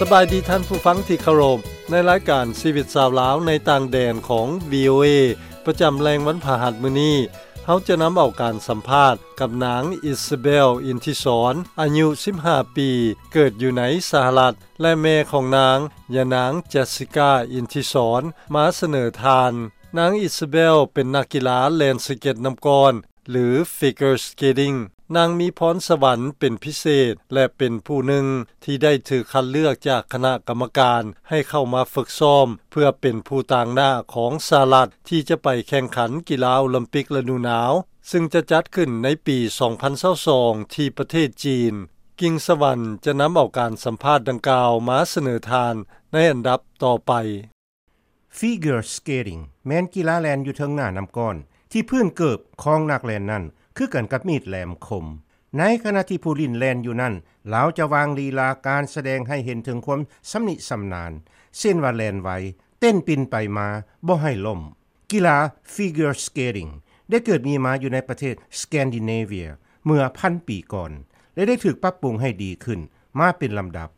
ສະບາຍດີທ່ານຜູ້ຟັງທີ່ເຄົາລົບ. ໃນລາຍການຊີວິດຊາວລາວໃນຕ່າງແດນຂອງ ວີໂອເອ ປະຈຳແລງວັນພະຫັດມື້ນີ້, ເຮົາຈະນຳເອົາການສຳພາດກັບນາງ ອິສເບລ ອິນທິສອນ ອາຍຸສິບຫ້າປີ, ເກີດຢູ່ໃນສະຫະລັດ ແລະ ແມ່ຂອງນາງ ຍານາງ ເຈສຊິກາ ອິນທິສອນ ມາສະເໜີທ່ານ. ນາງ ອິສເບລ ເປັນນັກກິລາແລ່ນສະເກັດນ້ຳກ້ອນ ຫຼື figure skating. ນາງມີພອນສະຫວັນເປັນພິເສດ ແລະ ເປັນຜູ້ໜຶ່ງທີ່ໄດ້ຖືກຄັດເລືອກຈາກຄະນະກຳມະການໃຫ້ເຂົ້າມາຝຶກຊ້ອມ ເພື່ອເປັນຜູ້ຕາງໜ້າຂອງສະຫະລັດ ທີ່ຈະໄປແຂ່ງຂັນກິລາໂອລິມປິກລະດູໜາວ ຊຶ່ງຈະຈັດຂຶ້ນໃນປີສອງພັນຊາວສອງ ທີ່ປະເທດຈີນ. ກິ່ງສະຫວັນຈະນຳເອົາການສຳພາດດັ່ງກ່າວມາສະເໜີທ່ານໃນອັນດັບຕໍ່ໄປ. Figure skating ແມ່ນກິລາແລ່ນຢູ່ເທິງໜ້ານ້ຳກ້ອນ ທີ່ພື້ນເກີບຂອງນັກແລ່ນນັ້ນຄືກັນກັບມີດແຫຼມຄົມ. ໃນຂະນະທີ່ຜູ້ຫຼິ້ນແລ່ນຢູ່ນັ້ນ, ລາວຈະວາງລີລາການສະແດງໃຫ້ເຫັນເຖິງຄວາມຊຳນິຊຳນານ, ເຊັ່ນວ່າແລ່ນໄວ, ເຕັ້ນປິ່ນໄປມາ, ບໍ່ໃຫ້ລົ້ມ. ກິລາ figure skating ໄດ້ເກີດມີມາຢູ່ໃນປະເທດ Scandinavia ເມື່ອພັນປີກ່ອນ ແລະ ໄດ້ຖືກປັບປຸງໃຫ້ດີຂຶ້ນມາເປັນລຳດັບ.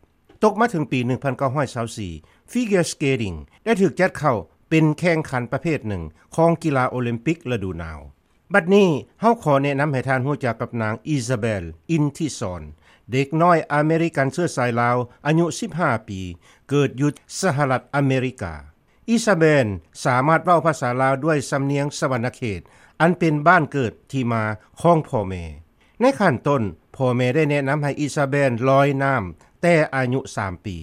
ຕົກມາເຖິງປີໜຶ່ງພັນເກົ້າຮ້ອຍຊາວສີ່ figure skating ໄດ້ຖືກຈັດເຂົ້າເປັນແຂ່ງຂັນປະເພດໜຶ່ງຂອງກິລາໂອລິມປິກລະດູໜາວ. ບັດນີ້ເຮົາຂໍແນະນຳໃຫ້ທ່ານຮູ້ຈັກກັບນາງ ອິສາເບລ ອິນທິສອນ ເດັກນ້ອຍອາເມລິກັນເຊື້ອສາຍລາວ ອາຍຸສິບຫ້າປີ, ເກີດຢູ່ສະຫະລັດອາເມລິກາ. ອິສາເບນສາມາດເວົ້າພາສາລາວດ້ວຍສຳນຽງສະຫວັນນະເຂດ ອັນເປັນບ້ານເກີດທີ່ມາຂອງພໍ່ແມ່. ໃນຂັ້ນຕົ້ນ, ພໍ່ແມ່ໄດ້ແນະນຳໃຫ້ອິສາເບນລອຍນ້ຳແຕ່ອາຍຸສາມປີ.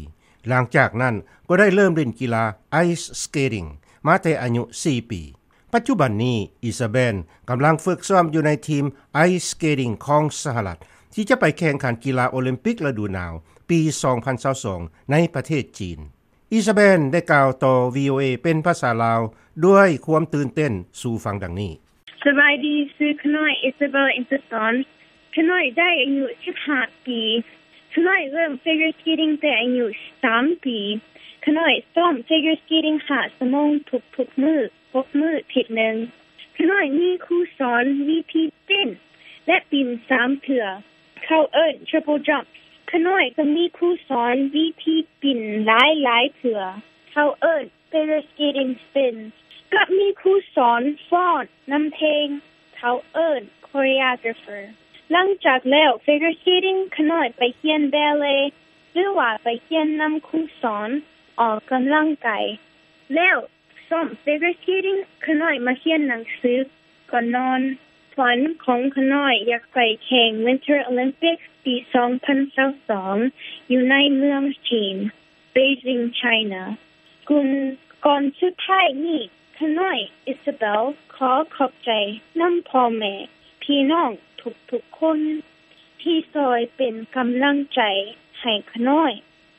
ຫຼັງຈາກນັ້ນກໍໄດ້ເລີ່ມຫຼິ້ນກິລາ ice skating ມາແຕ່ອາຍຸສີ່ປີ. ປັດຈຸບັນນີ້, ອິສາເບນກຳລັງຝຶກຊ້ອມຢູ່ໃນທີມ ice skating ຂອງສະຫະລັດ ທີ່ຈະໄປແຂ່ງຂັນກິລາໂອລິມປິກລະດູໜາວປີສອງພັນຊາວສອງ ໃນປະເທດຈີນ. ອິສາເບນໄດ້ກ່າວຕໍ່ ວີໂອເອ ເປັນພາສາລາວດ້ວຍຄວາມຕື່ນເຕັ້ນສູ່ຟັງດັ່ງນີ້. ສະບາຍດີ, ຊື່ຂ້ານ້ອຍ ອິສາເບລ ອິນເຕີສອນ. ຂ້ານ້ອຍໄດ້ອາຍຸສິບຫ້າປີ. ຂ້ານ້ອຍເລີ່ມ figure skating ແຕ່ອາຍຸສາມປີ. ຂ້ານ້ອຍຊ້ອມ figure skating ຫ້າຊົ່ວໂມງທຸກໆມື້, ຫົກມື້ທິດໜຶ່ງ. ຂ້ານ້ອຍມີຄູສອນວິທີເຕັ້ນ ແລະ ປິ່ນສາມເທື່ອ. ເຂົາເອີ້ນ triple jump. ຂ້ານ້ອຍກໍມີຄູສອນວິທີປິ່ນຫຼາຍໆເທື່ອ. ເຂົາເອີ້ນ figure skating spin ກັບມີຄູສອນຟ້ອນນຳເພງ. ເຂົາເອີ້ນ choreographer. ຫຼັງຈາກແລ້ວ figure skating ຂ້ານ້ອຍໄປຮຽນ ballet ຫຼືວ່າໄປຮຽນນຳຄູສອນອອກກຳລັງກາຍ. ແລ້ວ ຊ້ອມ figure skating ຂ້ານ້ອຍມາຮຽນໜັງສືກ່ອນນອນ. ຝັນຂອງຂ້ານ້ອຍຢາກໄປແຂ່ງ Winter Olympics ປີສອງພັນຊາວສອງ ຢູ່ໃນເມືອງຈີນ Beijing China. ກ່ອນສຸດທ້າຍນີ້ ຂ້ານ້ອຍ ອິສາເບລ ຂໍຂອບໃຈນຳພໍ່ແມ່ ພີ່ນ້ອງທຸກໆຄົນ ທີ່ຊ່ອຍເປັນກຳລັງໃຈໃຫ້ຂ້ານ້ອຍ.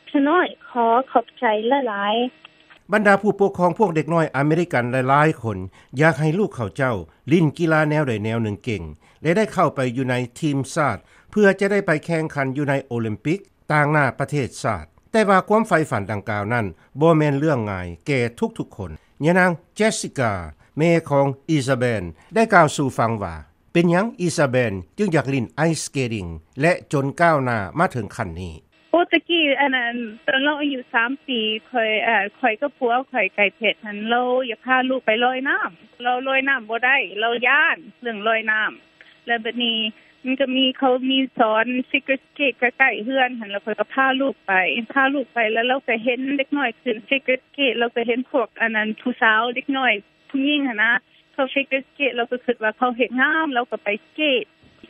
ຂ້ານ້ອຍຂໍຂອບໃຈຫຼາຍໆ. ບັນດາຜູ້ປົກຄອງພວກເດັກນ້ອຍອາເມລິກັນຫຼາຍໆຄົນ ຢາກໃຫ້ລູກເຂົາເຈົ້າຫຼິ້ນກິລາແນວໃດແນວໜຶ່ງເກັ່ງ ແລະ ໄດ້ເຂົ້າໄປຢູ່ໃນທີມຊາດ ເພື່ອຈະໄດ້ໄປແຂ່ງຂັນຢູ່ໃນໂອລິມປິກ ຕາງໜ້າປະເທດຊາດ. ແຕ່ວ່າຄວາມໃຝ່ຝັນດັ່ງກ່າວນັ້ນ ບໍ່ແມ່ນເລື່ອງງ່າຍແກ່ທຸກໆຄົນ. ຍານາງ ເຈສຊິກາ ແມ່ຂອງ ອິສາເບນ ໄດ້ກ່າວສູ່ຟັງວ່າ ເປັນຫຍັງ ອິສາເບນ ຈຶ່ງຢາກຫຼິ້ນ ice skating ແລະ ຈົນກ້າວໜ້າມາເຖິງຂັ້ນນີ້? ໂອ ຕະກີ້ ອັນນັ້ນ ຕອນລາວອາຍຸສາມປີ ຂ້ອຍ ເອີ ຂ້ອຍກັບຜົວຂ້ອຍ ໄກ່ເພັດຫັ້ນ ລາວຢາກພາລູກໄປລອຍນ້ຳ. ລາວລອຍນ້ຳບໍ່ໄດ້ ລາວຢ້ານເລື່ອງລອຍນ້ຳ. ແລ້ວບັດນີ້ມັນກໍມີ ເຂົາມີສອນ figure skate ໃກ້ໆເຮືອນຫັ້ນ ແລ້ວຂ້ອຍກໍພາລູກໄປ ພາລູກໄປ ແລ້ວລາວກໍເຫັນເດັກນ້ອຍຂຶ້ນ figure skate ລາວກໍເຫັນພວກ ອັນນັ້ນ ຜູ້ສາວເດັກນ້ອຍຜູ້ຍິງຫັ້ນນະ ເຂົາ figure skate ລາວກໍຄິດວ່າເຂົາເຮັດງາມ ລາວກໍໄປ skate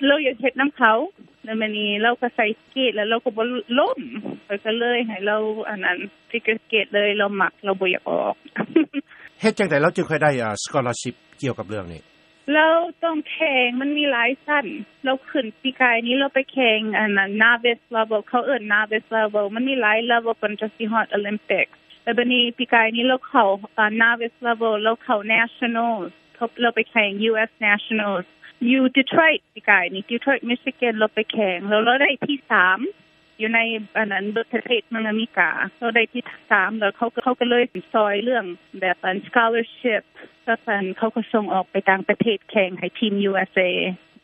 ລາວຢາກເຮັດນຳເຂົາ. ແລ້ວມື້ນີ້ລາວກໍໃສ່ skate ແລ້ວລາວກໍບໍ່ລົ້ມ ຂ້ອຍກໍເລີຍໃຫ້ລາວ ອັນນັ້ນ figure skate ເລີຍ ລາວມັກ ລາວບໍ່ຢາກອອກ. ເຮັດຈັ່ງໃດລາວຈຶ່ງຄ່ອຍໄດ້ ອ່າ scholarship ກ່ຽວກັບເລື່ອງນີ້? ລາວຕ້ອງແຂ່ງ ມັນມີຫຼາຍຊັ້ນ. ລາວຂຶ້ນ ປີກາຍນີ້ລາວໄປແຂ່ງ ອັນນັ້ນ novice level ເຂົາເອີ້ນ novice level ມັນມີຫຼາຍ level ກ່ອນຈະຊິຮອດ Olympic. ແລ້ວບັດນີ້ປີກາຍນີ້ລາວເຂົ້າ ອ່າ novice level ລາວເຂົ້າ nationals ເຂົາ ລາວໄປແຂ່ງ US nationals ຢູ່ Detroit ປີກາຍນີ້ Detroit Michigan ລາວໄປແຂ່ງ ແລ້ວລາວໄດ້ທີສາມ ຢູ່ໃນ ອັນນັ້ນ ເບິດປະເທດເມືອງອາເມລິກາ ລາວໄດ້ທີສາມ ແລ້ວເຂົາ ເຂົາກໍເລີຍຊ່ອຍເລື່ອງແບບ ອັນ scholarship ແລ້ວ ອັນ ເຂົາກໍສົ່ງອອກໄປຕ່າງປະເທດແຂ່ງໃຫ້ທີມ USA.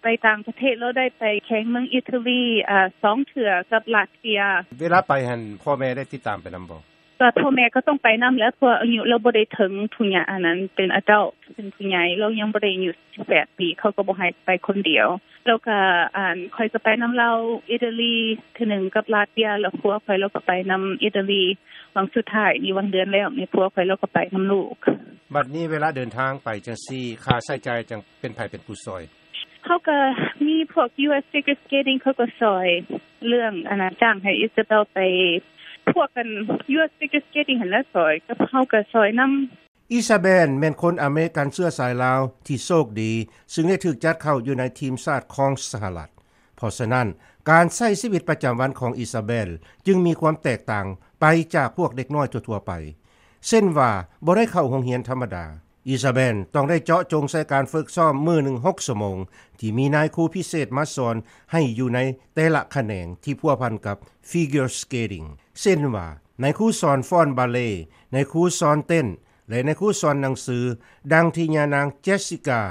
ໄປຕ່າງປະເທດ ລາວໄດ້ໄປແຂ່ງເມືອງອິຕາລີ ອາ ສອງເທື່ອກັບລາດເຊຍ. ເວລາໄປຫັ້ນ ພໍ່ແມ່ໄດ້ຕິດຕາມໄປນຳບໍ່? ກໍພໍ່ແມ່ກໍຕ້ອງໄປນຳແຫຼະ ເພາະວ່າອາຍຸລາວບໍ່ໄດ້ເຖິງຜູ້ໃຫຍ່ ອັນນັ້ນເປັນ adult ເປັນຜູ້ໃຫຍ່ ລາວຍັງບໍ່ໄດ້ອາຍຸສິບແປດປີ ເຂົາກໍບໍ່ໃຫ້ໄປຄົນດຽວ. ແລ້ວກໍ ອັນ ຂ້ອຍກໍໄປນຳລາວອິຕາລີເທື່ອໜຶ່ງ ກັບລາດເຊຍ ແລ້ວຜົວຂ້ອຍລາວກໍໄປນຳອິຕາລີ ຫວ່າງສຸດທ້າຍນີ້ ຫວ່າງເດືອນແລ້ວນີ້ ຜົວຂ້ອຍລາວກໍໄປນຳລູກ. ບັດນີ້ເວລາເດີນທາງໄປຈັ່ງຊີ້ ຄ່າໃຊ້ຈ່າຍຈັ່ງເປັນໃຜເປັນຜູ້ຊ່ອຍ? ເຮົາກໍມີພວກ ຢູ ເອສ Figure Skating ເຂົາກໍຊ່ອຍເລື່ອງ ອັນນ່າ ຈ້າງໃຫ້ Isabel ໄປ ພວກ ອັນ ຢູ ເອສ Figure Skating ຫັ້ນແຫຼະຊ່ອຍ ກັບເຮົາກໍຊ່ອຍນຳ. Isabel ແມ່ນຄົນອາເມລິກັນເຊື້ອສາຍລາວທີ່ໂຊກດີ ຊຶ່ງໄດ້ຖືກຈັດເຂົ້າຢູ່ໃນທີມຊາດຂອງສະຫະລັດ. ເພາະສະນັ້ນ ການໃຊ້ຊີວິດປະຈຳວັນຂອງ Isabel ຈຶ່ງມີຄວາມແຕກຕ່າງໄປຈາກພວກເດັກນ້ອຍທົ່ວໆໄປ ເຊັ່ນວ່າ ບໍ່ໄດ້ເຂົ້າໂຮງຮຽນທຳມະດາ. Isabel ຕ້ອງໄດ້ເຈາະຈົງໃສ່ການຝຶກຊ້ອມມື້ໜຶ່ງຫົກຊົ່ວໂມງ ທີ່ມີນາຍຄູພິເສດມາສອນໃຫ້ຢູ່ໃນແຕ່ລະຂະແໜງທີ່ພົວພັນກັບ Figure Skating ເຊັ່ນວ່າ ນາຍຄູສອນຟ້ອນບາເລ, ນາຍຄູສອນເຕັ້ນ ແລະ ນາຍຄູສອນໜັງສື, ດັ່ງທີ່ຍານາງ Jessica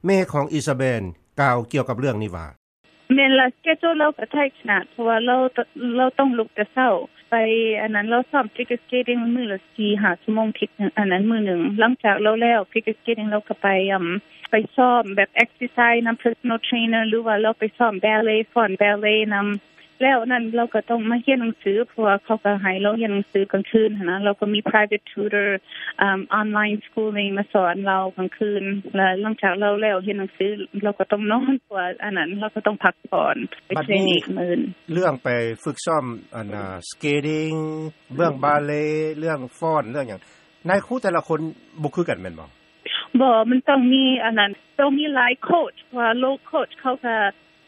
ແມ່ຂອງ Isabel ກ່າວກ່ຽວກັບເລື່ອງນີ້ວ່າ. ແມ່ນລະ schedule ລາວກໍ tight ຂະໜາດ ເພາະວ່າລາວ ລາວຕ້ອງລຸກແຕ່ເຊົ້າ ໄປ ອັນນັ້ນ ລາວຊ້ອມ figure skating ມື້ລະສີ່ຫ້າຊົ່ວໂມງທິດ ອັນນັ້ນ ມື້ໜຶ່ງ. ຫຼັງຈາກລາວແລ້ວ figure skating ລາວກໍໄປ ອາ ໄປຊ້ອມແບບ exercise ນຳ personal trainer ຫຼືວ່າລາວໄປຊ້ອມ ballet ຟ້ອນ ballet ນຳ. ແລ້ວນັ້ນລາວກໍຕ້ອງມາຮຽນໜັງສື ເພາະວ່າເຂົາກໍໃຫ້ລາວຮຽນໜັງສືກາງຄືນຫັ້ນນະ. ລາວກໍມີ private tutor ອາ online schooling ມາສອນລາວກາງຄືນ ແລະ ຫຼັງຈາກລາວແລ້ວຮຽນໜັງສື ລາວກໍຕ້ອງນອນ ເພາະວ່າ ອັນນັ້ນ ລາວກໍຕ້ອງພັກຜ່ອນ ໄປເທຣນອີກມື້. ເລື່ອງໄປຝຶກຊ້ອມ ອັນນ່າ skating ເລື່ອງ ballet ເລື່ອງຟ້ອນ ເລື່ອງຫຍັງ ນາຍຄູແຕ່ລະຄົນບໍ່ຄືກັນແມ່ນບໍ່? ບໍ່ ມັນຕ້ອງມີ ອັນນັ້ນ ຕ້ອງມີຫຼາຍໂຄດ ເພາະວ່າ low coach ເຂົາກໍ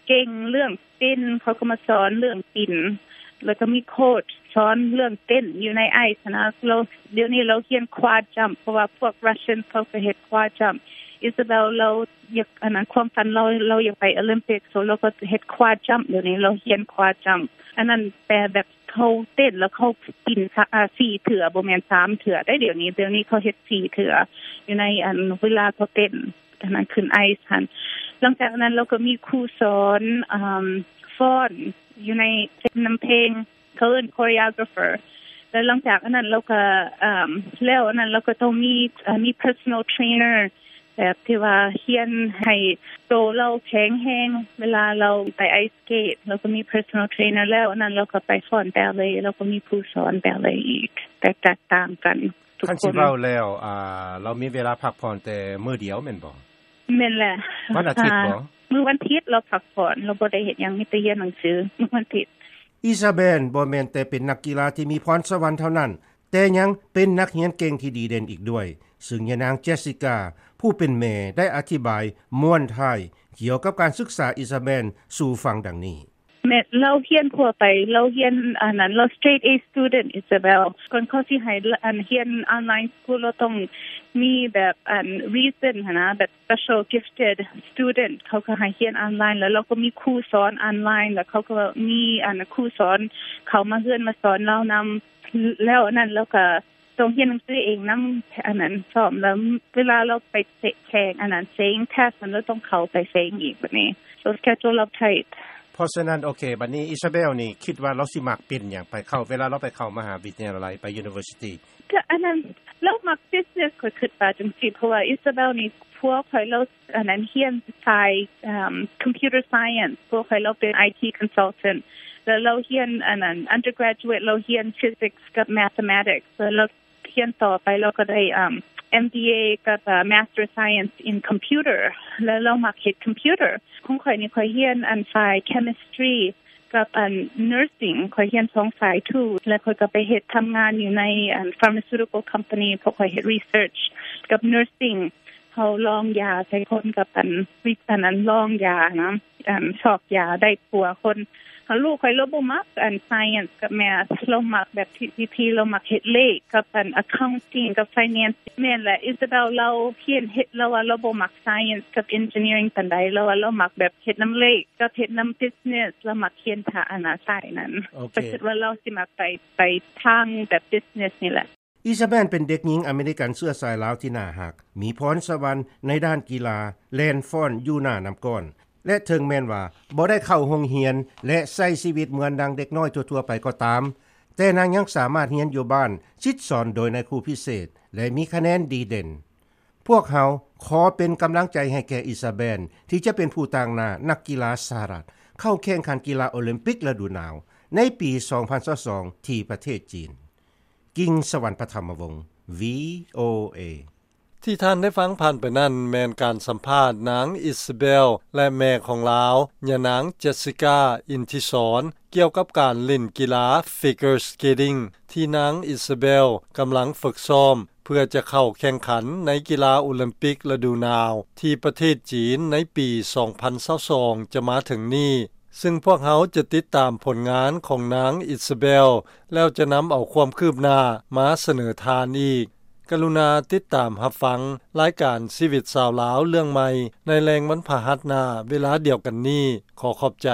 ເກັ່ງເລື່ອງ spin ເຂົາກໍມາສອນເລື່ອງ spin ແລ້ວກໍມີໂຄດສອນເລື່ອງເຕັ້ນຢູ່ໃນ ice ຫັ້ນນະ. ລາວ ດຽວນີ້ລາວຮຽນ quad jump ເພາະວ່າພວກ Russian ເຂົາກໍເຮັດ quad jump. Isabel ລາວຢາກ ອັນນັ້ນ ຄວາມຝັນລາວ ລາວຢາກໄປ Olympic, so ລາວກໍເຮັດ quad jump. ດຽວນີ້ລາວຮຽນ quad jump ອັນນັ້ນ ແປແບບເຂົາເຕັ້ນແລ້ວເຂົາປິ່ນ ອາ ສີ່ເທື່ອ ບໍ່ແມ່ນສາມເທື່ອໄດ໋. ດຽວນີ້ ດຽວນີ້ເຂົາເຮັດສີ່ເທື່ອ ຢູ່ໃນ ອັນ ເວລາເຂົາເຕັ້ນ ອັນນັ້ນ ຂຶ້ນ ice ຫັ້ນ. ຫຼັງຈາກນັ້ນລາວກໍມີຄູສອນ ອາ ຟ້ອນຢູ່ໃນ ນຳເພງ ເຂົາເອີ້ນ choreographer. ແລ້ວຫຼັງຈາກອັນນັ້ນລາວກໍ ອາ ແລ້ວອັນນັ້ນລາວກໍຕ້ອງມີ ອາ ມີ personal trainer ແບບທີ່ວ່າຮຽນໃຫ້ໂຕລາວແຂງແຮງ ເວລາລາວໄປ ice skate ລາວກໍມີ personal trainer. ແລ້ວອັນນັ້ນລາວກໍໄປຟ້ອນ ballet ລາວກໍມີຄູສອນ ballet ອີກ ແຕ່ແຕກຕ່າງກັນ. ຄັນຊິເວົ້າແລ້ວ ອາ ລາວມີເວລາພັກຜ່ອນແຕ່ມື້ດຽວແມ່ນບໍ່? ແມ່ນແຫຼະ. ວັນອາທິດບໍ່? ມື້ວັນທິດລາວພັກຜ່ອນ ລາວບໍ່ໄດ້ເຮັດຫຍັງ ມີແຕ່ຮຽນໜັງສືມື້ວັນທິດ. Isabel ບໍ່ແມ່ນແຕ່ເປັນນັກກິລາທີ່ມີພອນສະຫວັນເທົ່ານັ້ນ ແຕ່ຍັງເປັນນັກຮຽນເກັ່ງທີ່ດີເດັ່ນອີກດ້ວຍ, ຊຶ່ງຍານາງ Jessica ຜູ້ເປັນແມ່ ໄດ້ອະທິບາຍມ້ວນທ້າຍກ່ຽວກັບການສຶກສາ Isabel ສູ່ຟັງດັ່ງນີ້. ແມ່ນ ລາວຮຽນທົ່ວໄປ ລາວຮຽນ ອັນນັ້ນ ລາວ straight A student Isabel. ກ່ອນເຂົາຊິໃຫ້ ອັນ ຮຽນ online school ລາວຕ້ອງມີແບບ ອັນ reason ຫັ້ນນະ ແບບ special gifted student ເຂົາກໍໃຫ້ຮຽນ online ແລ້ວລາວກໍມີຄູສອນ online ແລ້ວເຂົາກໍມີ ອັນ ຄູສອນເຂົ້າມາເຮືອນມາສອນລາວນຳ. ແລ້ວອັນນັ້ນລາວກໍ ຕ້ອງຮຽນໜັງສືເອງນຳ ອັນນັ້ນ ຊ້ອມ ແລ້ວເວລາລາວໄປແຂ່ງ ອັນນັ້ນ ເສັງ test ຫັ້ນ ລາວຕ້ອງເຂົ້າໄປເສັງອີກ ບັດນີ້ so schedule ລາວ tight. ເພາະສະນັ້ນ ໂອເຄ ບັດນີ້ Isabel ນີ້ຄິດວ່າລາວຊິມັກເປັນຫຍັງ ໄປເຂົ້າ ເວລາລາວໄປເຂົ້າມະຫາວິທະຍາໄລ ໄປ university? ກໍອັນນັ້ນ ລາວມັກ business ຂ້ອຍຄິດວ່າຈັ່ງຊີ້ ເພາະວ່າ Isabel ນີ້ ຜົວຂ້ອຍລາວ ອັນນັ້ນ ຮຽນສາຍ ເອີ່ມ computer science ຜົວຂ້ອຍລາວເປັນ IT consultant ແລ້ວລາວຮຽນ ອັນນັ້ນ undergraduate ລາວຮຽນ physics ກັບ mathematics ແລ້ວລາວຮຽນຕໍ່ໄປ ລາວກໍໄດ້ ເອີ່ມ MBA ກັບ ເອີ່ Master Science in Computer ແລ້ວລາວມັກເຮັດ computer. ຂອງຂ້ອຍນີ້ ຂ້ອຍຮຽນ ອັນ ສາຍ chemistry ກັບ ອັນ nursing ຂ້ອຍຮຽນສອງສາຍ too ແລ້ວຂ້ອຍກໍໄປເຮັດ ທຳງານຢູ່ໃນ ອັນ pharmaceutical company ເພາະຂ້ອຍເຮັດ research ກັບ nursing ເຮົາລອງຢາໃສ່ຄົນກັບ ອັນ ວິ ອັນນັ້ນ ລອງຢານະ ອັນ ຊອກຢາໄດ້ປົວຄົນ. ລູກຂ້ອຍລາວບໍ່ມັກ ອັນ science ກັບ math ລາວມັກແບບທີ່ ທີ່ ທີ່ລາວມັກເຮັດເລກກັບ ອັນ accounting ກັບ finance. ແມ່ນແຫຼະ Isabel ລາວຮຽນເຮັດ ລາວວ່າລາວບໍ່ມັກ science ກັບ engineering ປານໃດ ລາວວ່າລາວມັກແບບເຮັດນຳເລກ ກັບເຮັດນຳ business ລາວມັກຮຽນທາງ ອັນ ສາຍນັ້ນ. ໂອເຄ ຂ້ອຍຄິດວ່າລາວຊິມັກໄປ ໄປທາງແບບ business ນີ້ແຫຼະ. Isabel ເປັນເດັກຍິງອາເມລິກັນເຊື້ອສາຍລາວທີ່ໜ້າຮັກ, ມີພອນສະຫວັນໃນດ້ານກິລາແລ່ນຟ້ອນຢູ່ໜ້ານ້ຳກ້ອນ. ແລະເຖິງແມ່ນວ່າບໍ່ໄດ້ເຂົ້າໂຮງຮຽນ ແລະໃຊ້ຊີວິດເໝືອນດັ່ງເດັກນ້ອຍທົ່ວໆໄປກໍຕາມ, ແຕ່ນາງຍັງສາມາດຮຽນຢູ່ບ້ານ, ສິດສອນໂດຍນາຍຄູພິເສດ ແລະມີຄະແນນດີເດັ່ນ. ພວກເຮົາຂໍເປັນກຳລັງໃຈໃຫ້ແກ່ອິຊາເບນ ທີ່ຈະເປັນຜູ້ຕາງໜ້ານັກກິລາສະຫະລັດ ເຂົ້າແຂ່ງຂັນກິລາໂອລິມປິກລະດູໜາວ ໃນປີສອງພັນຊາວສອງ ທີ່ປະເທດຈີນ. ກິງສະຫວັນ ປະທຳມະວົງ ວີໂອເອ. ທີ່ທ່ານໄດ້ຟັງຜ່ານໄປນັ້ນ ແມ່ນການສຳພາດນາງອິຊາເບນ ແລະແມ່ຂອງລາວ ຍານາງ Jessica ອິນທິສອນ ກ່ຽວກັບການຫຼິ້ນກິລາ figure skating ທີ່ນາງອິຊາເບນກຳລັງຝຶກຊ້ອມ ເພື່ອຈະເຂົ້າແຂ່ງຂັນໃນກິລາໂອລິມປິກລະດູໜາວ ທີ່ປະເທດຈີນໃນປີສອງພັນຊາວສອງ ຈະມາເຖິງນີ້, ຊຶ່ງພວກເຮົາຈະຕິດຕາມຜົນງານຂອງນາງອິຊາເບນ ແລ້ວຈະນຳເອົາຄວາມຄືບໜ້າມາສະເໜີທ່ານອີກ. ກະລຸນາຕິດຕາມຮັບຟັງລາຍການຊີວິດຊາວລາວເລື່ອງໃໝ່ ໃນແລງວັນພະຫັດໜ້າເວລາດຽວກັນນີ້. ຂໍຂອບໃຈ.